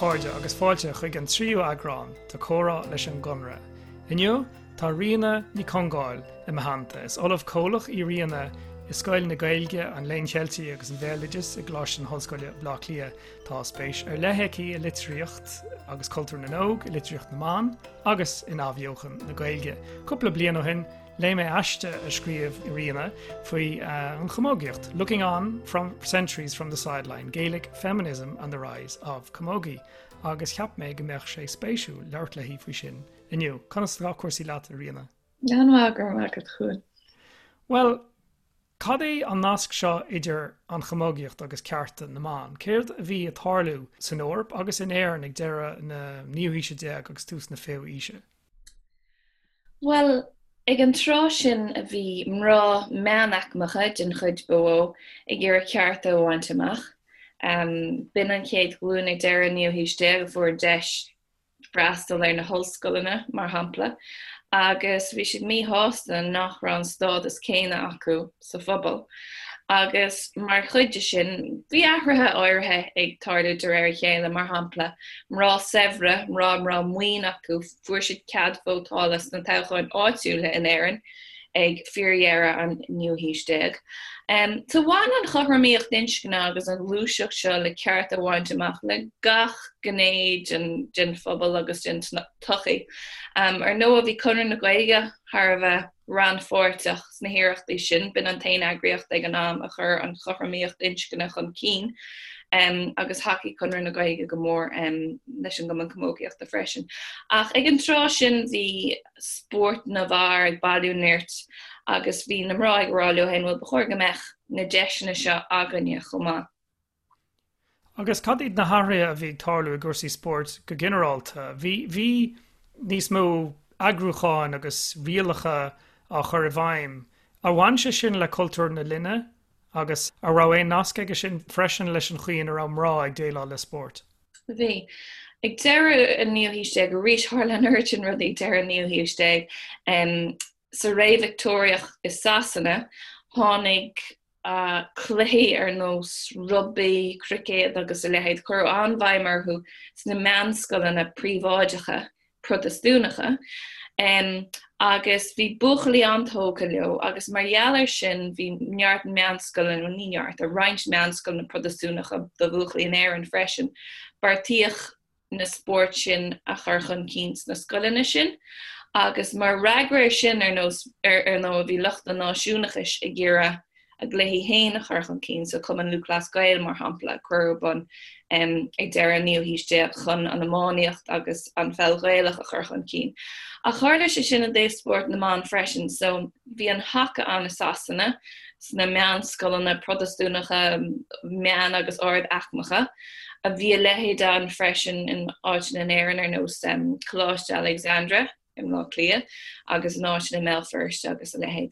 chairde agus fáilte chuig an tríú eagrán de Comhrá leis an gConradh. Inniu tá Ríona Ní Chongáil i mo theannta. Is Ollamh Comhlach í Ríona i Scoil na Gaeilge, an Léinn Cheiltigh agus an Bhéaloidis i gColáiste na hOllscoile, Baile Átha Cliath. Tá spéis ar leith aici i litríocht agus cultúr na n-óg, i litríocht na mban agus in athbheochan na Gaeilge. Cúpla bliain ó shin, léigh mé aiste a scríobh Ríona faoi an chamógaíocht, Looking On from Centuries from the Sideline, Gaelic Feminism and the Rise of Camogie, agus cheap mé go mbeadh sé spéisiúil labhairt léi faoi sin inniu. Conas atá cúrsaí leat, a Ríona? An-mhaith, go raibh maith agat, a Chuain. Bhuel, cad é an nasc seo idir an chamógaíocht agus cearta na mban? Céard a bhí ag tarlú san Eoraip agus in Éirinn ag deireadh na naoú haoise déag agus tús na fichiú haoise? Bhuel, ag an tráth sin a bhí mná meánaicmeacha, den chuid ba mhó, ag iarraidh cearta a bhaint amach. B'in an chéad ghlúin ag deireadh an naoú haois déag a fuair deis freastal ar na hollscoileanna, mar shampla, agus bhí siad míshásta nach raibh an stádas céanna acu sa phobal. Agus mar chuid de sin, bhí athruithe áirithe ag tarlú de réir a chéile, mar shampla, mná saibhre, mná a raibh maoin acu, fuair siad cead vótála sna toghcháin áitiúla in Éirinn ag fíordheireadh an naoú haois déag. So bhain an chothromaíocht inscne agus an ghluaiseacht seo le cearta a bhaint amach le gach gné den phobal agus den tsochaí. Ar ndóigh, bhí Conradh na Gaeilge thar a bheith rannpháirteach sna hiarrachtaí sin. B'in an t-aon eagraíocht ag an am a chuir an chothromaíocht inscne chun cinn agus thacaigh Conradh na Gaeilge go mór leis an gCumann Camógaíochta freisin. Ach ag an tráth sin bhí spórt na bhfear ag bailiú nirt agus bhí na mná ag rá leo féin, bhuel, ba chóir go mbeadh na deiseanna seo againne chomh maith. Agus cad iad na hathruithe a bhí ag tarlú i gcúrsaí spóirt go ginearálta? Bhí, bhí níos mó eagrúcháin agus rialacha á chur i bhfeidhm. Ar bhain sé sin le cultúr na linne agus an raibh aon nasc aige sin freisin leis an chaoi ina raibh mná ag déileáil le spórt? Bhí. Ag deireadh an naoú haois déag, arís tharla an oiread sin rudaí ag deireadh an naoú haois déag, sa ré Victeoiriach i Sasana, tháinig cluichí ar nós rugbaí, cruicéad agus a leithéid, cuireadh an-bhéim orthu sna meánscoileanna príobháideacha Protastúnacha agus bhí buachaillí an-tógtha leo agus mar gheall air sin bhí neart meánscoileanna, bhuel ní neart, ach roinnt meánscoileanna Protastúnacha do bhuachaillí in Éirinn freisin. Beartaíodh na spóirt sin a chur chun cinn sna scoileanna sin agus mar fhreagra air sin ar nós ar ndóigh bhí lucht an náisiúnachais ag iarraidh a gcluichí féin a chur chun cinn, so Cumann Lúthchleas Gael mar shampla a cuireadh ar bun ag deireadh an naoú haois déag chun an iománaíocht agus an pheil Ghaelach a chur chun cinn. Ach tharla sé sin i dtaobh spórt na mban freisin, so bhí an haca ann i Sasana sna meánscoileanna Protastúnacha meán agus ard-aicmeacha, a bhí a leithéid ann freisin in áiteanna in Éirinn ar nós Coláiste Alexandra i mBleá Cliath agus in áiteanna i mBéal Feirste agus a leithéid.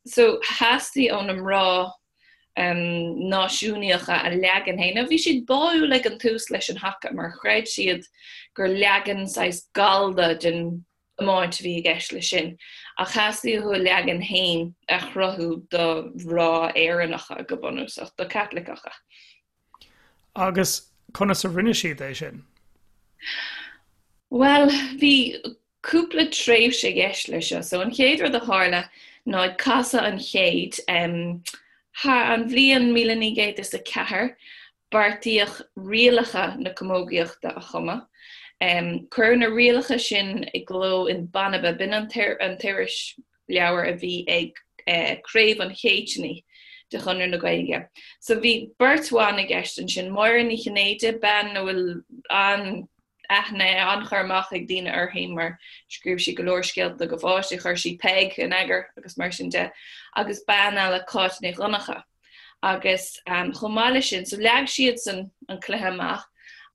So theastaigh ó na mná náisiúnaíocha a leagan féin. Now bhí siad báúil ag an tús leis an haca mar chreid siad gur leagan saghas gallda den iomáint a bhí i gceist leis sin, ach theastaigh uathu a leagan féin a chruthú do mhná Éireannacha go bunúsach, do Chaitliceacha. Agus conas a rinne siad é sin? Bhuel, bhí cúpla tréimhse i gceist leis seo. So an chéad rud a tharla ná ag casadh an chéid, thar an bhliain 1904, beartaíodh rialacha na camógaíochta a chumadh. Cuireadh na rialacha sin i gcló in Banba, b'in an t-irisleabhar a bhí ag Craobh an Chéitinnigh de Chonradh na Gaeilge. So bhí beirt bhan i gceist ansin, Máire Ní Chinnéide, bean a bhfuil an aithne, an-chur amach ag daoine uirthi mar scríobh sí go leor scéalta do pháistí, chuir sí Peig in eagar agus mar sin de, agus bean eile, Cáit Ní Dhonncha. Agus chomh maith leis sin, so leag siadsan an cluiche amach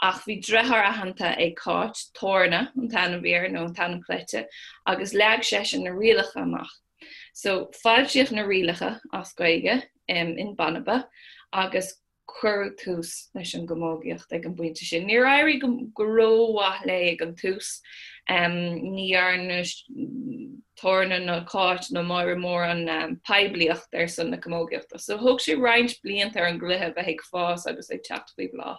ach bhí deartháir aitheanta ag Cáit, Torna an t-ainm a bhí air, nó an t-ainm cleite, agus leag seisean na rialacha amach. So foilsíodh na rialacha as Gaeilge in Banba agus cuireadh tús leis an gcamógaíocht ag an bpointe sin. Níor éirigh go rómhaith léi ag an tús. Ní dhearna Torna nó Cáit nó Máire mórán poiblíocht ar son na camógaíochta. So thóg sé roinnt blianta ar an gcluiche a bheith ag fás agus ag teacht faoi bhláth.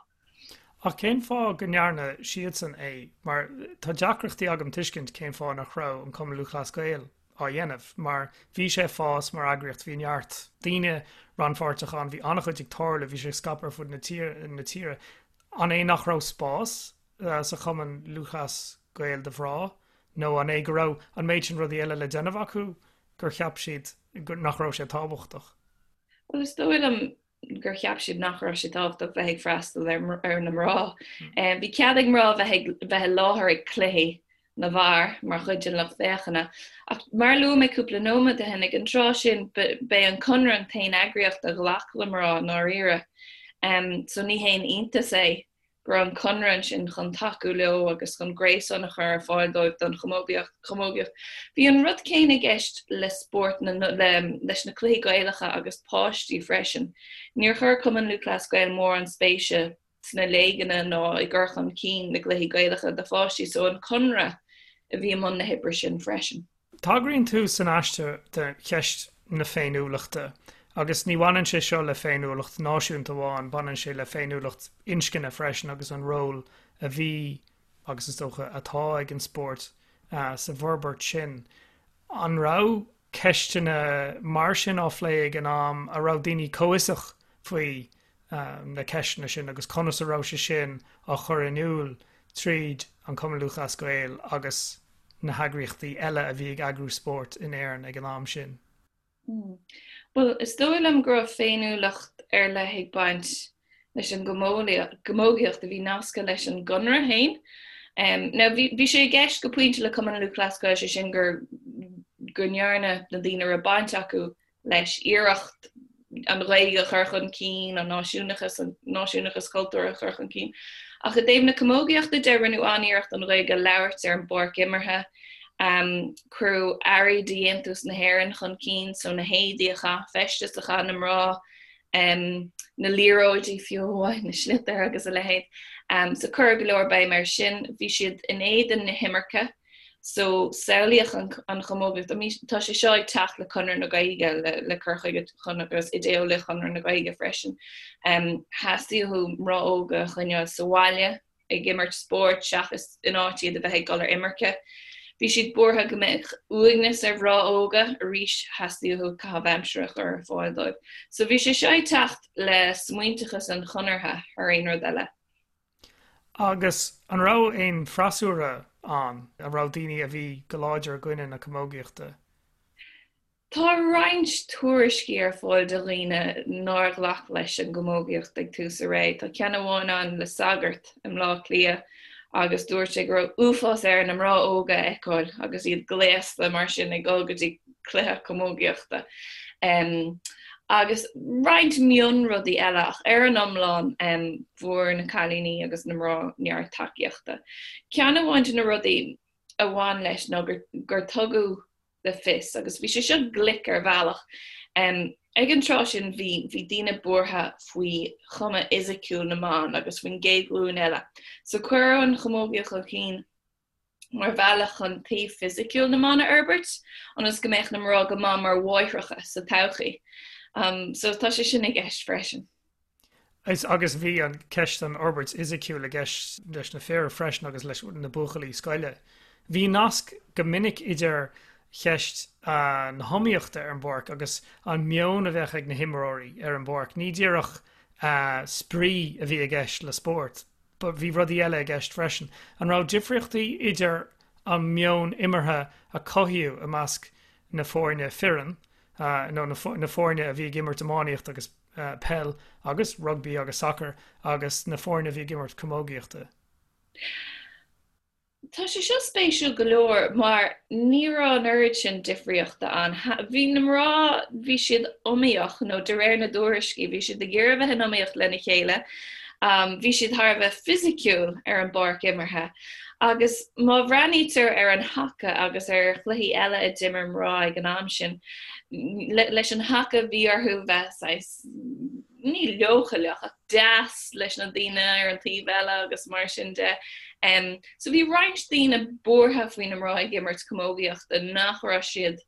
Ach cén fáth go ndearna siadsan é? Mar tá deacrachtaí agam tuiscint cén fáth nach raibh an Cumann Lúthchleas Gael á dhéanamh, mar bhí sé ag fás mar eagraíocht, bhí neart daoine rannpháirteach ann, bhí an-chuid ag tarlú, bhí sé ag scaipeadh ar fud na tíre. An é nach raibh spás sa Chumann Lúthchleas Gael do mhná, nó an é go raibh an méid sin rudaí eile le déanamh acu gur cheap siad nach raibh sé tábhachtach? Bhuel, is dóigh liom gur cheap siad nach raibh sé tábhachtach bheith ag freastal ar na mná. Bhí cead ag mná bheith ag bheith i láthair ag cluichí na bhfear mar chuid den lucht féachana. Ach mar a luaigh mé cúpla nóiméad ó shin, ag an tráth sin b'é an Conradh an t-aon eagraíocht a ghlac le mná i ndáiríre. So ní haon iontas é go raibh an Conradh ansin chun tacú leo agus chun gréasán a chur ar fáil dóibh don chamógaíocht. Bhí an rud céanna i gceist le spórt na, leis na cluichí Gaelacha agus páistí freisin. Níor chuir Cumann Lúthchleas Gael mórán spéise sna léigeanna ná i gcur chun cinn na gcluichí Gaelacha do pháistí so an Conradh a bhí i mbun na hoibre sin freisin. Tagraíonn tú san aiste do cheist na féiniúlachta, agus ní bhaineann sé seo le féiniúlacht náisiúnta amháin, baineann sé le féiniúlacht inscne freisin agus an ról a bhí, agus is dócha atá, ag an spórt sa bhforbairt sin. An raibh ceisteanna mar sin á phlé ag an am, an raibh daoine comhfhiosach faoi na ceisteanna sin agus conas a raibh sé sin á chur in iúl tríd an Cumann Lúthchleas Gael agus na heagraíochtaí eile a bhí ag eagrú spóirt in Éirinn ag an am sin? Bhuel, is dóigh liom go raibh féiniúlacht ar leith ag baint leis an gcamógaíocht a bhí nasctha leis an gConradh féin. Now, bhí sé i gceist go pointe le Cumann Lúthchleas Gael, sé sin gur go ndearna na daoine a raibh baint acu leis iarracht an Ghaeilge a chur chun cinn, an náisiúnachas, an náisiúnachas cultúrtha a chur chun cinn. Ach i dtaobh na camógaíochta de, rinneadh an-iarracht an Ghaeilge a labhairt ar an bpáirc imeartha. Cuireadh earraí de dhéantús na hÉireann chun cinn, so na héadaí a chaith, feisteas a chaith na mná, na liathróidí fiú amháin, na sliotair agus a leithéid. So cuireadh go leor béim air sin. Bhí siad in éadan na himirce. So, samhlaíodh an chamógaíocht, I mean, tá sé seo ag teacht le Conradh na Gaeilge, le cur chuige agus idé-eolaíocht Chonradh na Gaeilge freisin. Theastaigh uathu mná óga a choinneáil sa bhaile ag imirt spóirt seachas in áit iad a bheith ag dul ar imirce. Bhí siad buartha go mbeadh uaigneas ar mhná óga, arís theastaigh uathu caitheamh aimsire a chur ar fáil dóibh. So bhí sé seo ag teacht le smaointeachas an Chonartha thar aon rud eile. Agus an raibh aon freasúra ann? An raibh daoine a bhí go láidir i gcoinne na camógaíochta? Tá roinnt tuairiscí ar fáil de dhaoine nár ghlac leis an gcamógaíocht ag tús a ré. Tá ceann amháin ann le sagart i mBleá Cliath agus dúirt sé go raibh uafás air na mná óga a fheiceáil agus iad gléasta mar sin ag dul go dtí cluiche camógaíochta. Agus roinnt mionrudaí eile ach ar an iomlán fuair na cailíní agus na mná neart tacaíochta. Ceann amháin de na rudaí a bhain leis ná gur tugadh le fios, agus bhí sé seo glic ar bhealach, ag an tráth sin bhí bhí daoine buartha faoi chuma fhisiciúil na mban agus faoin gcéad ghlúin eile. So cuireadh an chamógaíocht chun cinn mar bhealach chun taobh fisiciúil na mban a fhorbairt, ionas go mbeadh na mná go maith mar mháithreacha sa todhchaí. So tá sé sin i gceist freisin. Is agus bhí an ceist an fhorbairt fhisiciúil i gceist leis na fir freisin agus leis na buachaillí scoile. Bhí nasc go minic idir cheist na hiomaíochta ar an bpáirc agus an meon a bheadh ag na himreoirí ar an bpáirc. Ní díreach spraoi a bhí i gceist le spórt. Bhí rudaí eile i gceist freisin. An raibh difríochtaí idir an meon imeartha a cothaíodh i measc na foirne fireann, nó na foirne a bhí ag imirt iománaíocht agus peil agus rugbaí agus sacar agus na foirne a bhí ag imirt camógaíochta? Tá sé seo spéisiúil go leor mar ní raibh an oiread sin difríochta ann. Bhí na mná, bhí siad iomaíoch, nó de réir na dtuairiscí, bhí siad ag iarraidh a bheith in iomaíocht lena chéile. Bhí siad thar a bheith fisiciúil ar an bpáirc imeartha. Agus má bhreathnaítear ar an haca agus ar chluichí eile a d'imir mná ag an am sin, leis an haca bhí orthu bheith saghas, ní leochaileach ach deas leis na daoine ar an taobh eile agus mar sin de. So bhí roinnt daoine buartha faoi na mná ag imirt camógaíochta, nach raibh siad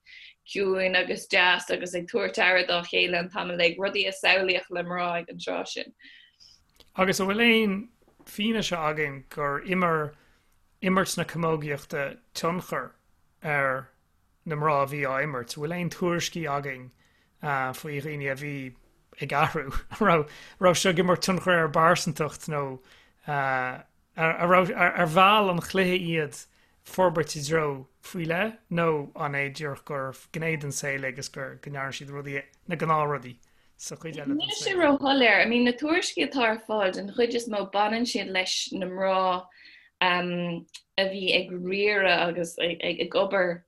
ciúin agus deas agus ag tabhairt aire dá chéile an t-am uilig, rudaí a samhlaíodh le mná ag an tráth sin. Agus an bhfuil aon fianaise againn gur imir imirt na camógaíochta tionchar ar na mná a bhí á imirt? An bhfuil aon tuairiscí againn faoi dhaoine a bhí ag athrú? An raibh seo ag imirt tionchar ar a bpearsantacht nó ar mheall an chluiche iad forbairt i dtreo faoi leith nó an é díreach gur gné den saol é agus go ndearna siad rudaí, na gnáthrudaí sa chuid eile den saol? Níl sé róshoiléir. I mean, na tuairiscí atá ar fáil, den chuid is mó baineann siad leis na mná a bhí ag riaradh agus ag obair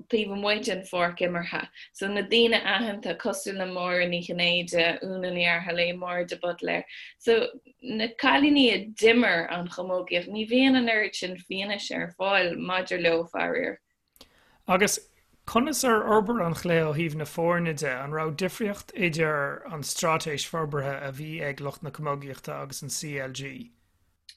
taobh amuigh den pháirc imeartha. So na daoine aitheanta cosúil le Máire Ní Chinnéide, Úna Ní Fhaircheallaigh, Máire de Buitléir. So na cailíní a d'imir an chamógaíocht, ní bhíonn an oiread sin fianaise ar fáil maidir leo, faraor. Agus conas ar fhorbair an chluiche ó thaobh na foirne de? An raibh difríocht idir an straitéis forbartha a bhí ag lucht na camógaíochta agus an CLG?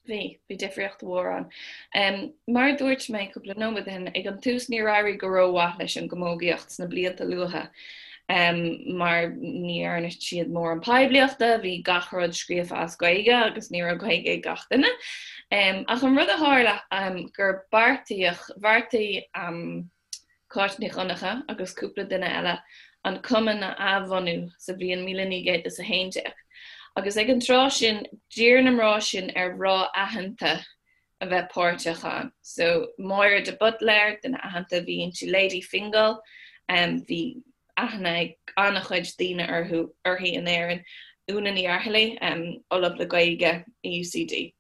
Bhí, bhí difríocht mhór ann. Mar a dúirt mé cúpla nóiméad ó shin, ag an tús níor éirigh go rómhaith leis an gcamógaíocht sna blianta luatha mar ní dhearna siad mórán poiblíochta, bhí gach rud scríofa as Gaeilge agus ní raibh Gaeilge ag gach duine. Ach an rud a tharla gur beartaíodh, bheartaigh Cáit Ní Dhonncha agus cúpla duine eile an cumann a athbhunú sa bhliain 1911 agus ag an tráth sin d'iarr na mná sin ar mhná aitheanta a bheith páirteach ann. So Máire de Buitléir, duine aitheanta a bhí inti, Lady Fingal, bhí aithne ag an-chuid daoine orthu, uirthi in Éirinn, Úna Ní Fhaircheallaigh, Ollamh le Gaeilge i UCD.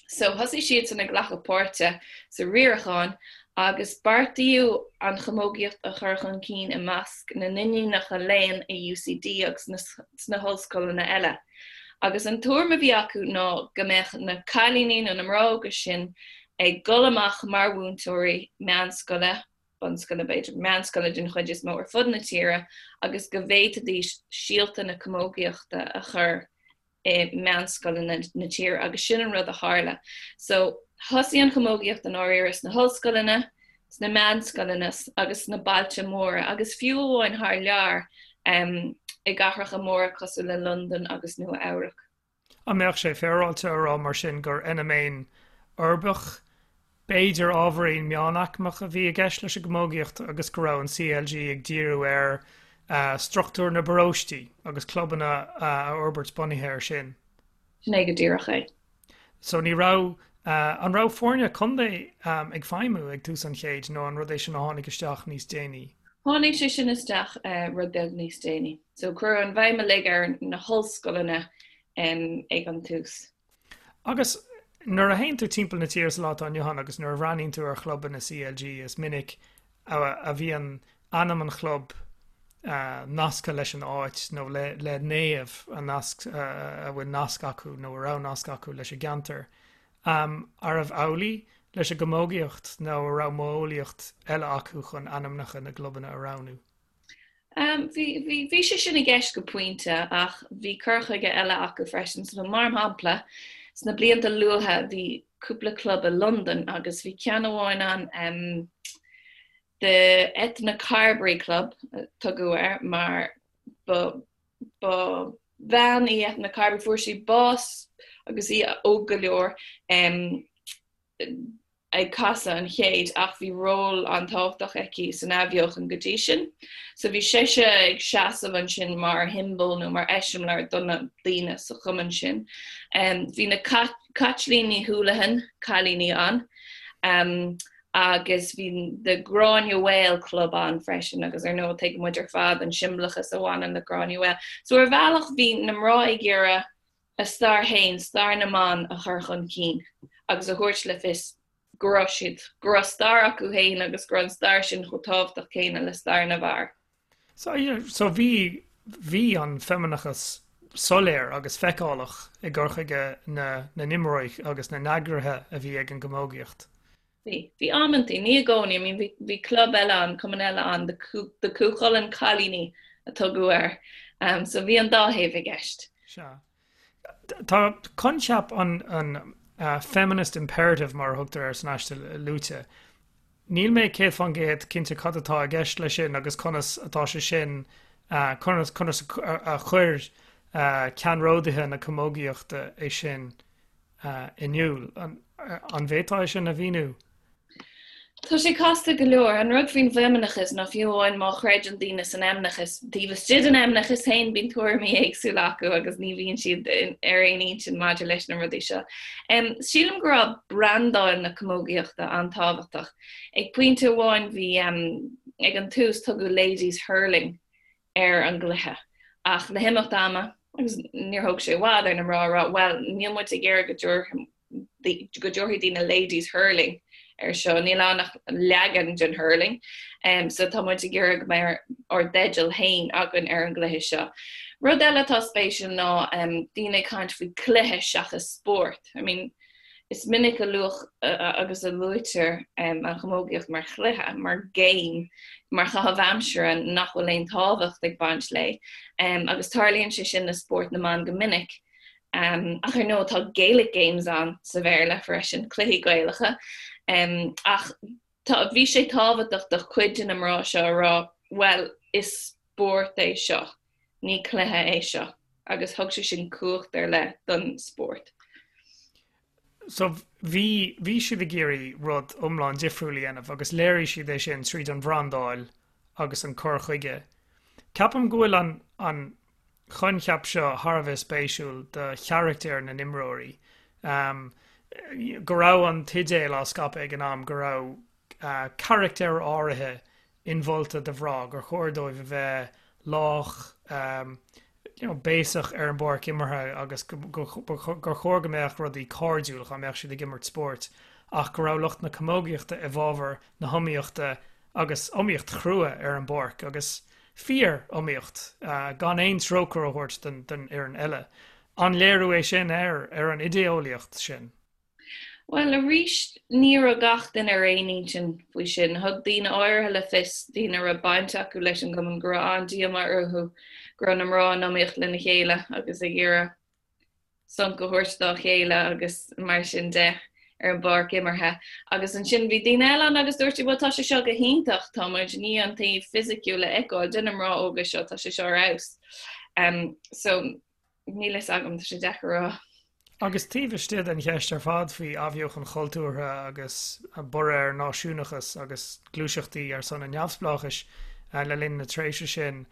So thosaigh siadsan ag glacadh páirte sa riarachán agus beartaíodh an chamógaíocht a chur chun cinn i measc na n-iníonacha léinn i UCD agus sna hollscoileanna eile. Agus an tuairim a bhí acu ná go mbeadh na cailíní nó na mná óga sin ag dul amach mar mhúinteoirí meánscoile, bunscoile b'fhéidir, meánscoile den chuid is mó ar fud na tíre agus go bhféadfaidís síolta na camógaíochta a chur i meánscoileanna na tíre agus sin an rud a tharla. So thosaigh an chamógaíocht i ndáiríre sna hollscoileanna, sna meánscoileanna agus sna bailte móra agus fiú amháin thar lear um, i gcathracha móra cosúil le Londain agus Nua Eabhrac. An mbeadh sé féaráilte a rá mar sin gur fheiniméan uirbeach B'fhéidir ábhairín meánaicmeach a bhí i gceist leis an gcamógaíocht agus go raibh an CLG ag díriú ar struchtúr na bparóistí agus clubanna a fhorbairt bunaithe air sin. Sin é go díreach é. So ní raibh, an raibh foirne contae ag feidhmiú ag tús an chéid nó an rud é sin a tháinig isteach níos déanaí? Tháinig sé sin isteach rud beag níos déanaí. So cuireadh an bhéim uilig ar na hollscoileanna ag an tús. Agus nuair a théann tú timpeall na tíre sa lá atá inniu ann agus nuair a bhreathnaíonn tú ar chlubanna CLG is minic a bhíonn ainm an chlub nasctha leis an áit nó le le naomh a nasc a bhfuil nasc acu nó a raibh nasc acu leis an gceantar. Arbh amhlaidh leis an gcamógaíocht nó a raibh modheolaíocht eile acu chun ainmneacha na gclubanna a roghnú? Bhí, bhí, bhí sé sin i gceist go pointe ach bhí cur chuige eile acu freisin. So mar shampla, sna blianta luatha bhí cúpla club i Londain agus bhí ceann amháin ann, um, The Ethna Carbery Club a tugadh air mar ba, ba bhean í Ethna Carbery, fuair sí bás agus í óg go leor, um, ag casadh an chéid ach bhí ról an-tábhachtach aici san athbheochan go dtí sin. So bhí sise ag seasamh ansin mar shiombail nó mar eiseamláir do na daoine sa chumann sin. Bhí na Caitlín Ní Houlihan, cailíní ann, agus bhí The Granuaile Club ann freisin agus ar ndóigh tuigeann muid ar fad an siombalachas a bhaineann le Granuaile. So ar bhealach bhí na mná ag iarraidh a stair féin, stair na mban a chur chun cinn agus a thabhairt le fios go raibh siad, go raibh stair acu féin agus go raibh an stair sin chomh tábhachtach céanna le stair na bhfear. So, yeah, so bhí, bhí an feimineachas soiléir agus feiceálach i gcur chuige na, na n-imreoirí agus na n-eagraithe a bhí ag an gcamógaíocht. Bhí. Bhí amantaí, ní i gcónaí, I mean bhí, bhí club eile ann, cumann eile ann, the Cú, the Cú Chulainn Cailíní a tugadh air. Um, so bhí an dá thaobh i gceist. Sea. Tá coincheap an, an uh, feminist imperative mar a thugtar air san aiste luaite. Níl mé 100% cinnte cad atá i gceist leis sin agus conas atá sé sin uh, conas, conas a, a chuir uh, ceannródaithe na camógaíochta é sin. In iúl. An bhféadfá é sin a mhíniú? Tá sé casta go leor. An rud faoin bhfeimineachas ná fiú amháin má chreideann daoine san fheimineachas, taobh istigh den fheimineachas féin bíonn tuairimí éagsúla acu agus ní bhíonn siad ar aon intinn maidir leis na rudaí seo. Sílim go raibh brandáil na camógaíochta an-tábhachtach. Ag pointe amháin bhí, ag an tús tugadh Ladies Hurling ar an gcluiche. Ach le himeacht ama, agus níor thóg sé i bhfad ar na mná a rá, bhuel, níl muid ag iarraidh go go dtabharfaidh daoine ladies hurling ar seo, níl ann ach leagan den hurling, so tá muid ag iarraidh go mbeidh ár dteideal féin againn ar an gcluiche seo. Rud eile atá spéisiúil ná daoine ag caint faoi cluiche seachas spórt. I mean, Is minic a luadh agus a luaitear an chamógaíocht mar chluiche, mar game, mar chaitheamh aimsire nach bhfuil aon tábhacht ag baint léi, agus tarlaíonn sé sin le spórt na mban go minic. Ach ar ndóigh tá Gaelic games ann sa Bhéarla freisin, cluichí Gaelacha. Ach tá, bhí sé tábhachtach do chuid de na mná seo a rá, bhuel, is spórt é seo. Ní cluiche é seo agus thug sé sin cumhacht ar leith don spórt. So bhí, bhí siad ag iarraidh rud iomlán difriúil a dhéanamh agus léirigh siad é sin tríd an bhrandáil agus an cur chuige. Ceapaim go bhfuil an, an coincheap seo thar a bheith spéisiúil do charachtair na n-imreoirí. Go raibh an t-idéal á scaipeadh ag an am go raibh carachtair áirithe inmholta do mhná, gur chóir dóibh a bheith lách, you know, béasach ar an bpáirc imeartha agus gur chóir go mbeadh rudaí cairdiúil dá mbeadh siad ag imirt spóirt ach go raibh lucht na camógaíochta i bhfabhar na hiomaíochta agus iomaíocht chrua ar an bpáirc agus fíor-iomaíocht gan aon trócaire a thabhairt don fhoireann eile. An léiriú é sin ar ar an idé-eolaíocht sin? Bhuel, arís, ní raibh gach duine ar aon intinn faoi sin. Thug daoine áirithe le fios, daoine a raibh baint acu leis an gcumann, go raibh an-díomá orthu go raibh na mná in iomaíocht lena chéile agus ag iarraidh sonc a thabhairt dá chéile agus mar sin de ar an bpáirc imeartha. Agus ansin bhí daoine eile ann agus dúirt siad, bhuel, tá sé seo go hiontach, tá muid i ndiaidh an taobh fisiciúil a fheiceáil de na mná óga seo, tá sé seo ar fheabhas. So. Níl fhios agam, tá sé deacair a rá. Agus taobh istigh den cheist ar fad faoi athbheochan chultúrtha agus borradh ar náisiúnachas agus gluaiseachtaí ar son an neamhspleáchais le linn na tréimhse sin,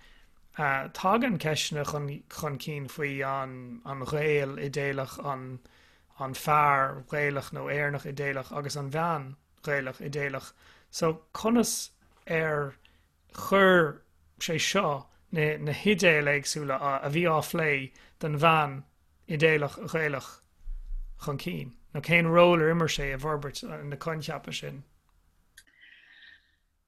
tagann ceisteanna chun cinn faoi an Ghael idéalach, an fear Gaelach nó Éireannach idéalach agus an bhean Ghaelach idéalach. So conas ar chuir sé seo na hidéil éagsúla a bhí á phlé don bhean idéalach Ghaelach chun cinn, nó cén ról ar imir sé i bhforbairt na coincheapa sin?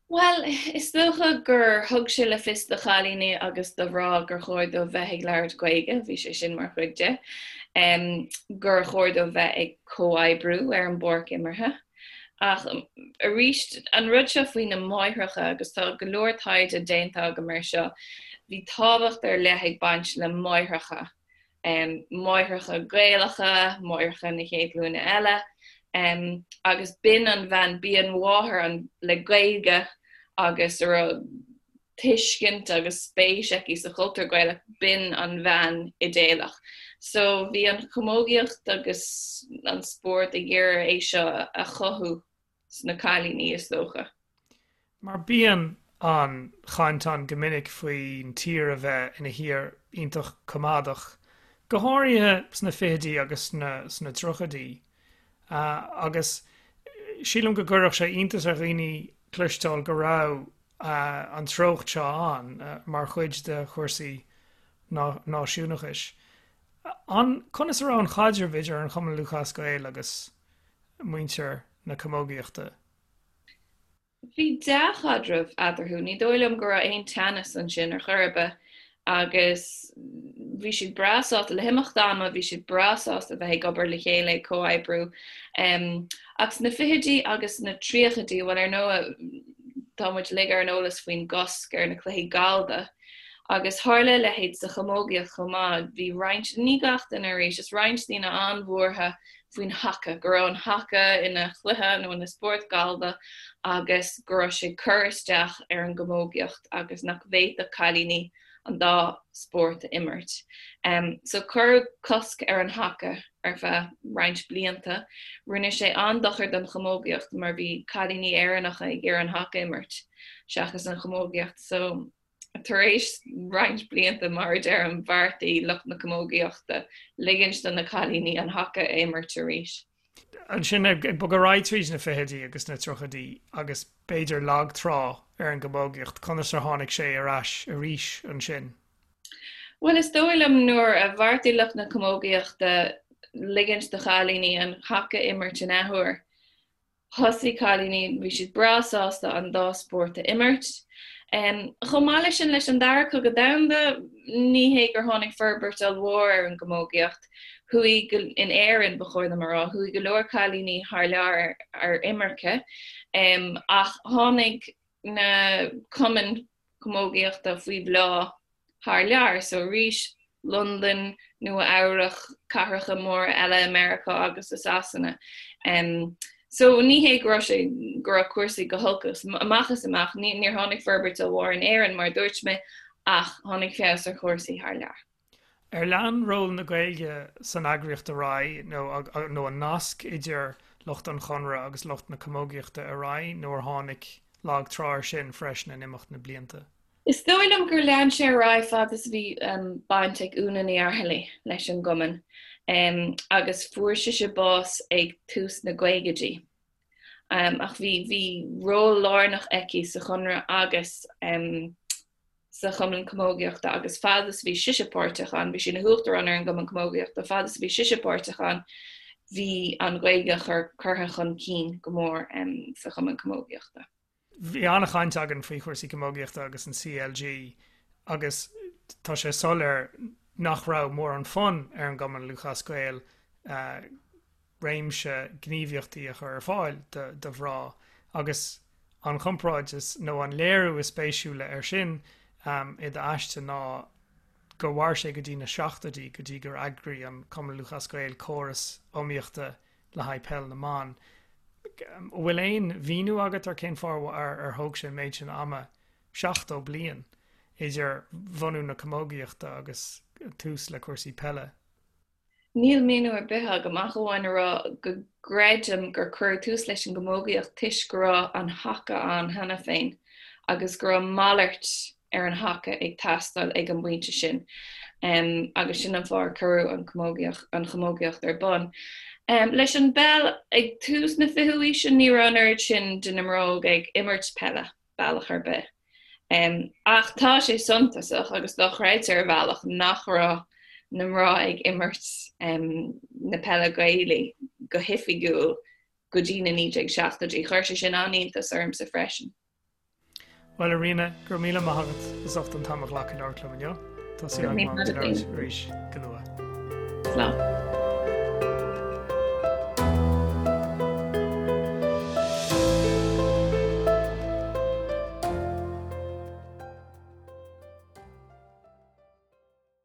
Bhuel, is dócha gur thug sé le fios do chailíní agus do mhná gur chóir dóibh bheith ag labhairt Gaeilge, bhí sé sin mar chuid de, gur chóir dóibh bheith ag comhoibriú ar an bpáirc imeartha. Ach arís, an rud seo faoi na máithreacha, agus tá go leor taighde déanta agam air seo, bhí tábhacht ar leith ag baint le máithreacha, máithreacha Gaelacha, máithreacha na chéad ghlúine eile, agus b'in an bhean, b'í an mháthair le Gaeilge agus a raibh tuiscint agus spéis aici sa chultúr Gaelach, b'in an bhean idéalach. So bhí an chamógaíocht agus an spórt ag iarraidh é seo a chothú sna cailíní, is dócha. Mar bíonn an chaint ann go minic faoin tír a bheith ina thír iontach coimeádach, go háirithe sna fichidí agus sna tríochaidí. Agus sílim go gcuirfeadh sé iontas ar dhaoine cloisteáil go raibh an treocht seo ann mar chuid de chúrsaí náisiúnachais. An, conas a raibh an chaidreamh idir an Chumann Lúthchleas Gael agus muintir na camógaíochta? Bhí dea-chaidreamh eatarthu. Ní dóigh liom go raibh aon teannas ansin ar chor ar bith agus bhí siad breá sásta, le himeacht ama, bhí siad breá sásta bheith ag obair le chéile, ag comhoibriú. Ach sna fichidí agus sna tríochaidí, bhuel ar ndóigh tá muid uilig ar an eolas faoin gcosc ar na cluichí gallda agus tharla a leithéid sa chamógaíocht chomh maith. Bhí roinnt, ní gach duine arís, is roinnt daoine an-bhuartha faoin haca, go raibh an haca ina chluiche nó ina spórt gallda agus go raibh sé ag cur isteach ar an gcamógaíocht agus nach bhféadfadh cailíní. an dá spórt a imirt. So cuireadh cosc ar an haca ar feadh roinnt blianta. Rinne sé an-dochar don chamógaíocht mar bhí cailíní Éireannacha ag iarraidh an haca a imirt seachas an chamógaíocht. So tar éis roinnt blianta, mar a deirim, bheartaigh lucht na camógaíochta ligint do na cailíní an haca a imirt arís. Ansin ag bogadh ar aghaidh tríd na fichidí agus na tríochaidí agus b'fhéidir lag trá ar an gcamógaíocht, conas ar tháinig sé ar ais arís ansin? Bhuel, is dóigh liom nuair a bheartaigh lucht na camógaíochta ligint do chailíní an haca a imirt in athuair, Thosaigh cailíní, bhí siad breá sásta an dá spórt a imirt. Chomh maith leis sin, leis an Dara Cogadh Domhanda, ní hé gur tháinig forbairt ollmhór ar an gcamógaíocht. Chuaigh, in Éirinn, ba chóir dom a rá, chuaigh go leor cailíní thar lear ar imirce, ach tháinig na cumainn camógaíochta faoi bhláth thar lear. So arís, Londain, Nua Eabhrach, cathracha móra eile i Meiriceá agus i Sasana. So ní hé go raibh sé, go raibh cúrsaí go holc amach is amach, níor tháinig forbairt ollmhór in Éirinn mar a dúirt mé, ach tháinig feabhas ar chúrsaí thar lear. Ar lean ról na Gaeilge san eagraíocht ar aghaidh nó nó an nasc idir lucht an Chonradh agus lucht na camógaíochta ar aghaidh nó ar tháinig lag trá air sin freisin in imeacht na blianta? Is dóigh liom gur lean sé ar aghaidh fad is a bhí baint ag Úna Ní Fhaircheallaigh leis an gcumann agus fuair sise bás ag tús na gcaogaidí. Ach bhí bhí ról lárnach aici sa Chonradh agus sa Chumann Camógaíochta agus fad is a bhí sise páirteach ann, bhí sí ina huachtarán ar an gCumann Camógaíochta, fad is a bhí sise páirteach ann, bhí an Ghaeilge curtha chun cinn go mór sa Chumann Camógaíochta. Bhí an-chaint againn faoi chúrsaí camógaíochta agus an CLG agus tá sé soiléir nach raibh mórán fonn ar an gCumann Lúthchleas Gael réimse gníomhaíochtaí a chur ar fáil do mhná agus an chomparáid is, nó an léiriú is spéisiúla air sin i d'aiste ná gur mhair sé go dtí na seachtóidí go dtí gur eagraigh an Cumann Lúthchleas Gael córas iomaíochta le haghaidh peil na mban. An bhfuil aon mhíniú agat ar cén fáth ar thóg sé an méid sin ama, 70 bliain, idir bhunú na camógaíochta agus tús le cúrsaí peile? Níl míniú ar bith agam ach amháin a rá go gcreidim gur cuireadh tús leis an gcamógaíocht toisc go raibh an haca ann cheana féin agus go raibh malairt ar an haca ag teastáil ag an bpointe sin agus sin an fáth ar cuireadh an an chamógaíocht ar bun. Leis an bpeil ag tús na fichiú haoise ní raibh an oiread sin de na mná óga ag imirt peile. bealach ar bith. Ach tá sé suntasach agus dochreidte ar bhealach nach raibh na mná ag imirt na peile Gaelaí go hoifigiúil go dtí na 1970idí. Chuir sé sin an-iontas ormsa freisin. Bhuel, a Ríona, go raibh míle maith agat as ucht an t-am a ghlacadh labhairt liom inniu. Tá súil agam labhairt arís go luath. Slán.